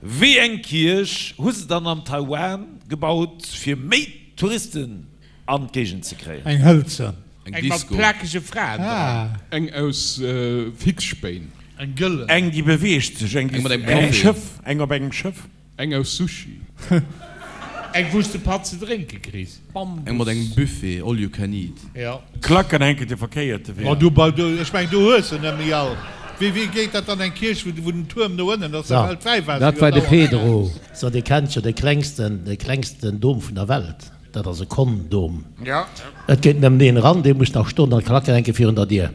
Wéi eng Kierch hu se dann am Taiwan gebaut fir méi Touristen an d'Géigend ze kréien? Eng hëlzen. Eng Eng mat Disco. plakege Fraen dran. Eng aus Fixspéin. Eng gëllen. Eng déi beweegt sech. Eng Eng mat engem eng Café. Schëff. Eng op engem Schëff. Eng aus Sushi. Eng wou s de Patt ze drénke kriss. Eng mat engem Buffet, all you can eat. Jo. Klacken hänken de verkéierte Wee. Ma du, bei, du, ech mengen, du hues se net méi all. Wéi, wéi geet dat dann, eng Kierch, wou, wou den Tuerm no ënnen ass, So, da fält d'Wäiwaasser dat jo war de dauernd Pedro. eraus. So, Dir kennt jo de klengsten, de klengsten Dom vun der Welt. Dat ass e Kondom. Et geet nëmmen een eran, dee muss nach stoen an d'Klacken hänke virun der Dier.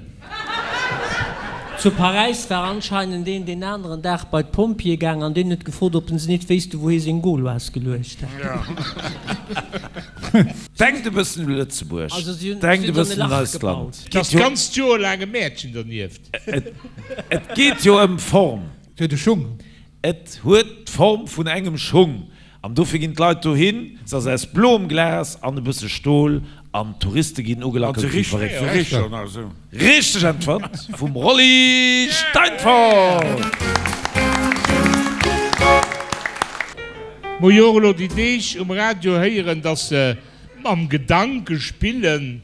Zu Paräis war anscheinend een deen aneren Dag bei d'Pompjeeë gaang an deen huet gefrot, ob en se nit wéisste wou hie seng Gauloise geluecht hätt. Denkt e bëssen u Lëtzebuerg, Also si hunn denkt e si hunn dann e bëssen un Lach eist gebaut. Land. Et ass d'ganzt Joer laang e Mäertchen dernieft. Et geet jo ëm Form. Et huet e Schung. Et huet d'Form vun engem Schung An dofir ginn d'Leit dohin. Se ass aus bloem Glas an e bësse Stol an d'Touriste ginn ugelackelt wéi verréckt. Richteg Äntwert vum Rolly Steinfort! Mer jo och elo déi Deeg um Radio héieren, dass se mam Gedanke spillen,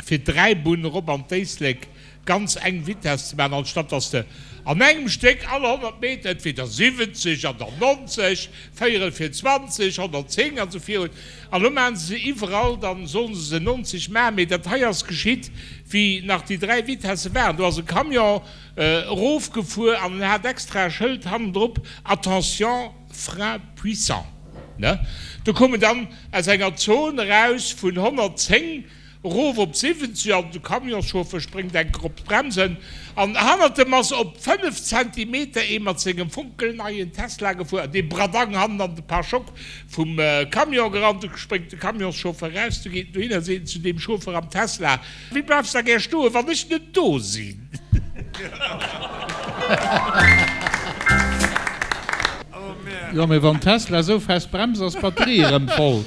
fir d'Dräibunn erop an d'Éislek ganz eng Vitess ze maachen, anstatt dass de an engem Stéck all 100 Meter entweder 70 an dann 90, véierel fir 20, 110 an esou virun. An elo maachen se se iwwerall, dann sollen se se 90 maachen. Mee dat hei ass geschitt, wéi nach déi 3 Vitesse waren. Do ass e Camion erofgefuer an en hat extra e Schëld hannendrop, Attention, frein puissant. Ne? Do koum en dann aus enger Zon eraus vun 110 Erof op 70 an de Camionschauffeur spréngt enker op d'Bremsen an hannert em ass op 5 Zentimeter ee mat sengem fonkelneien Tesla gefuer an dee Bradang hannen an de Pare-choc vum Camion gerannt. Du spréngt de Camionschauffeur eraus, du geet en dohin a seet en zu deem Chauffeur am Tesla, Wéi bleifs da gär stoen, wann ech net do sinn? Jo, mee wann Tesla esou fest bremst, ass d'Batterie erëm voll.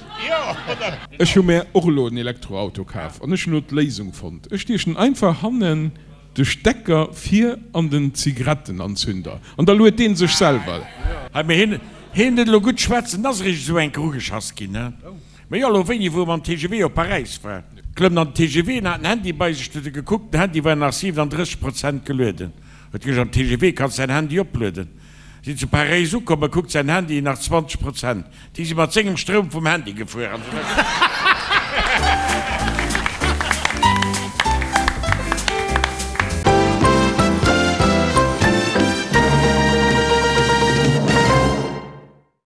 Ech hu mär och elo en Elektroauto kaf an ech hunn elo d'Léisung fonnt. Ech stiechen einfach hannen de Stecker vir an den Zigarettenanzünder an da luet deen sech selwer. Hei, mee hien, hien net elo gutt schwätzen, ass eréischt esou enker ugeschass ginn, he? Mee jo, elo wéini, wou e mam TGV op Paräis war, klëmmt an den TGV en hat den Handy bei sech, huet e gekuckt, den Handy war nach 37 Prozent gelueden, huet gesot, am TGV kanns däin Handy oplueden. Sinn zu Paräis ukomm, e kuckt säin Handy, nach 20 Prozent. Déi si mat sengem Stroum vum Handy gefuer an esou weider.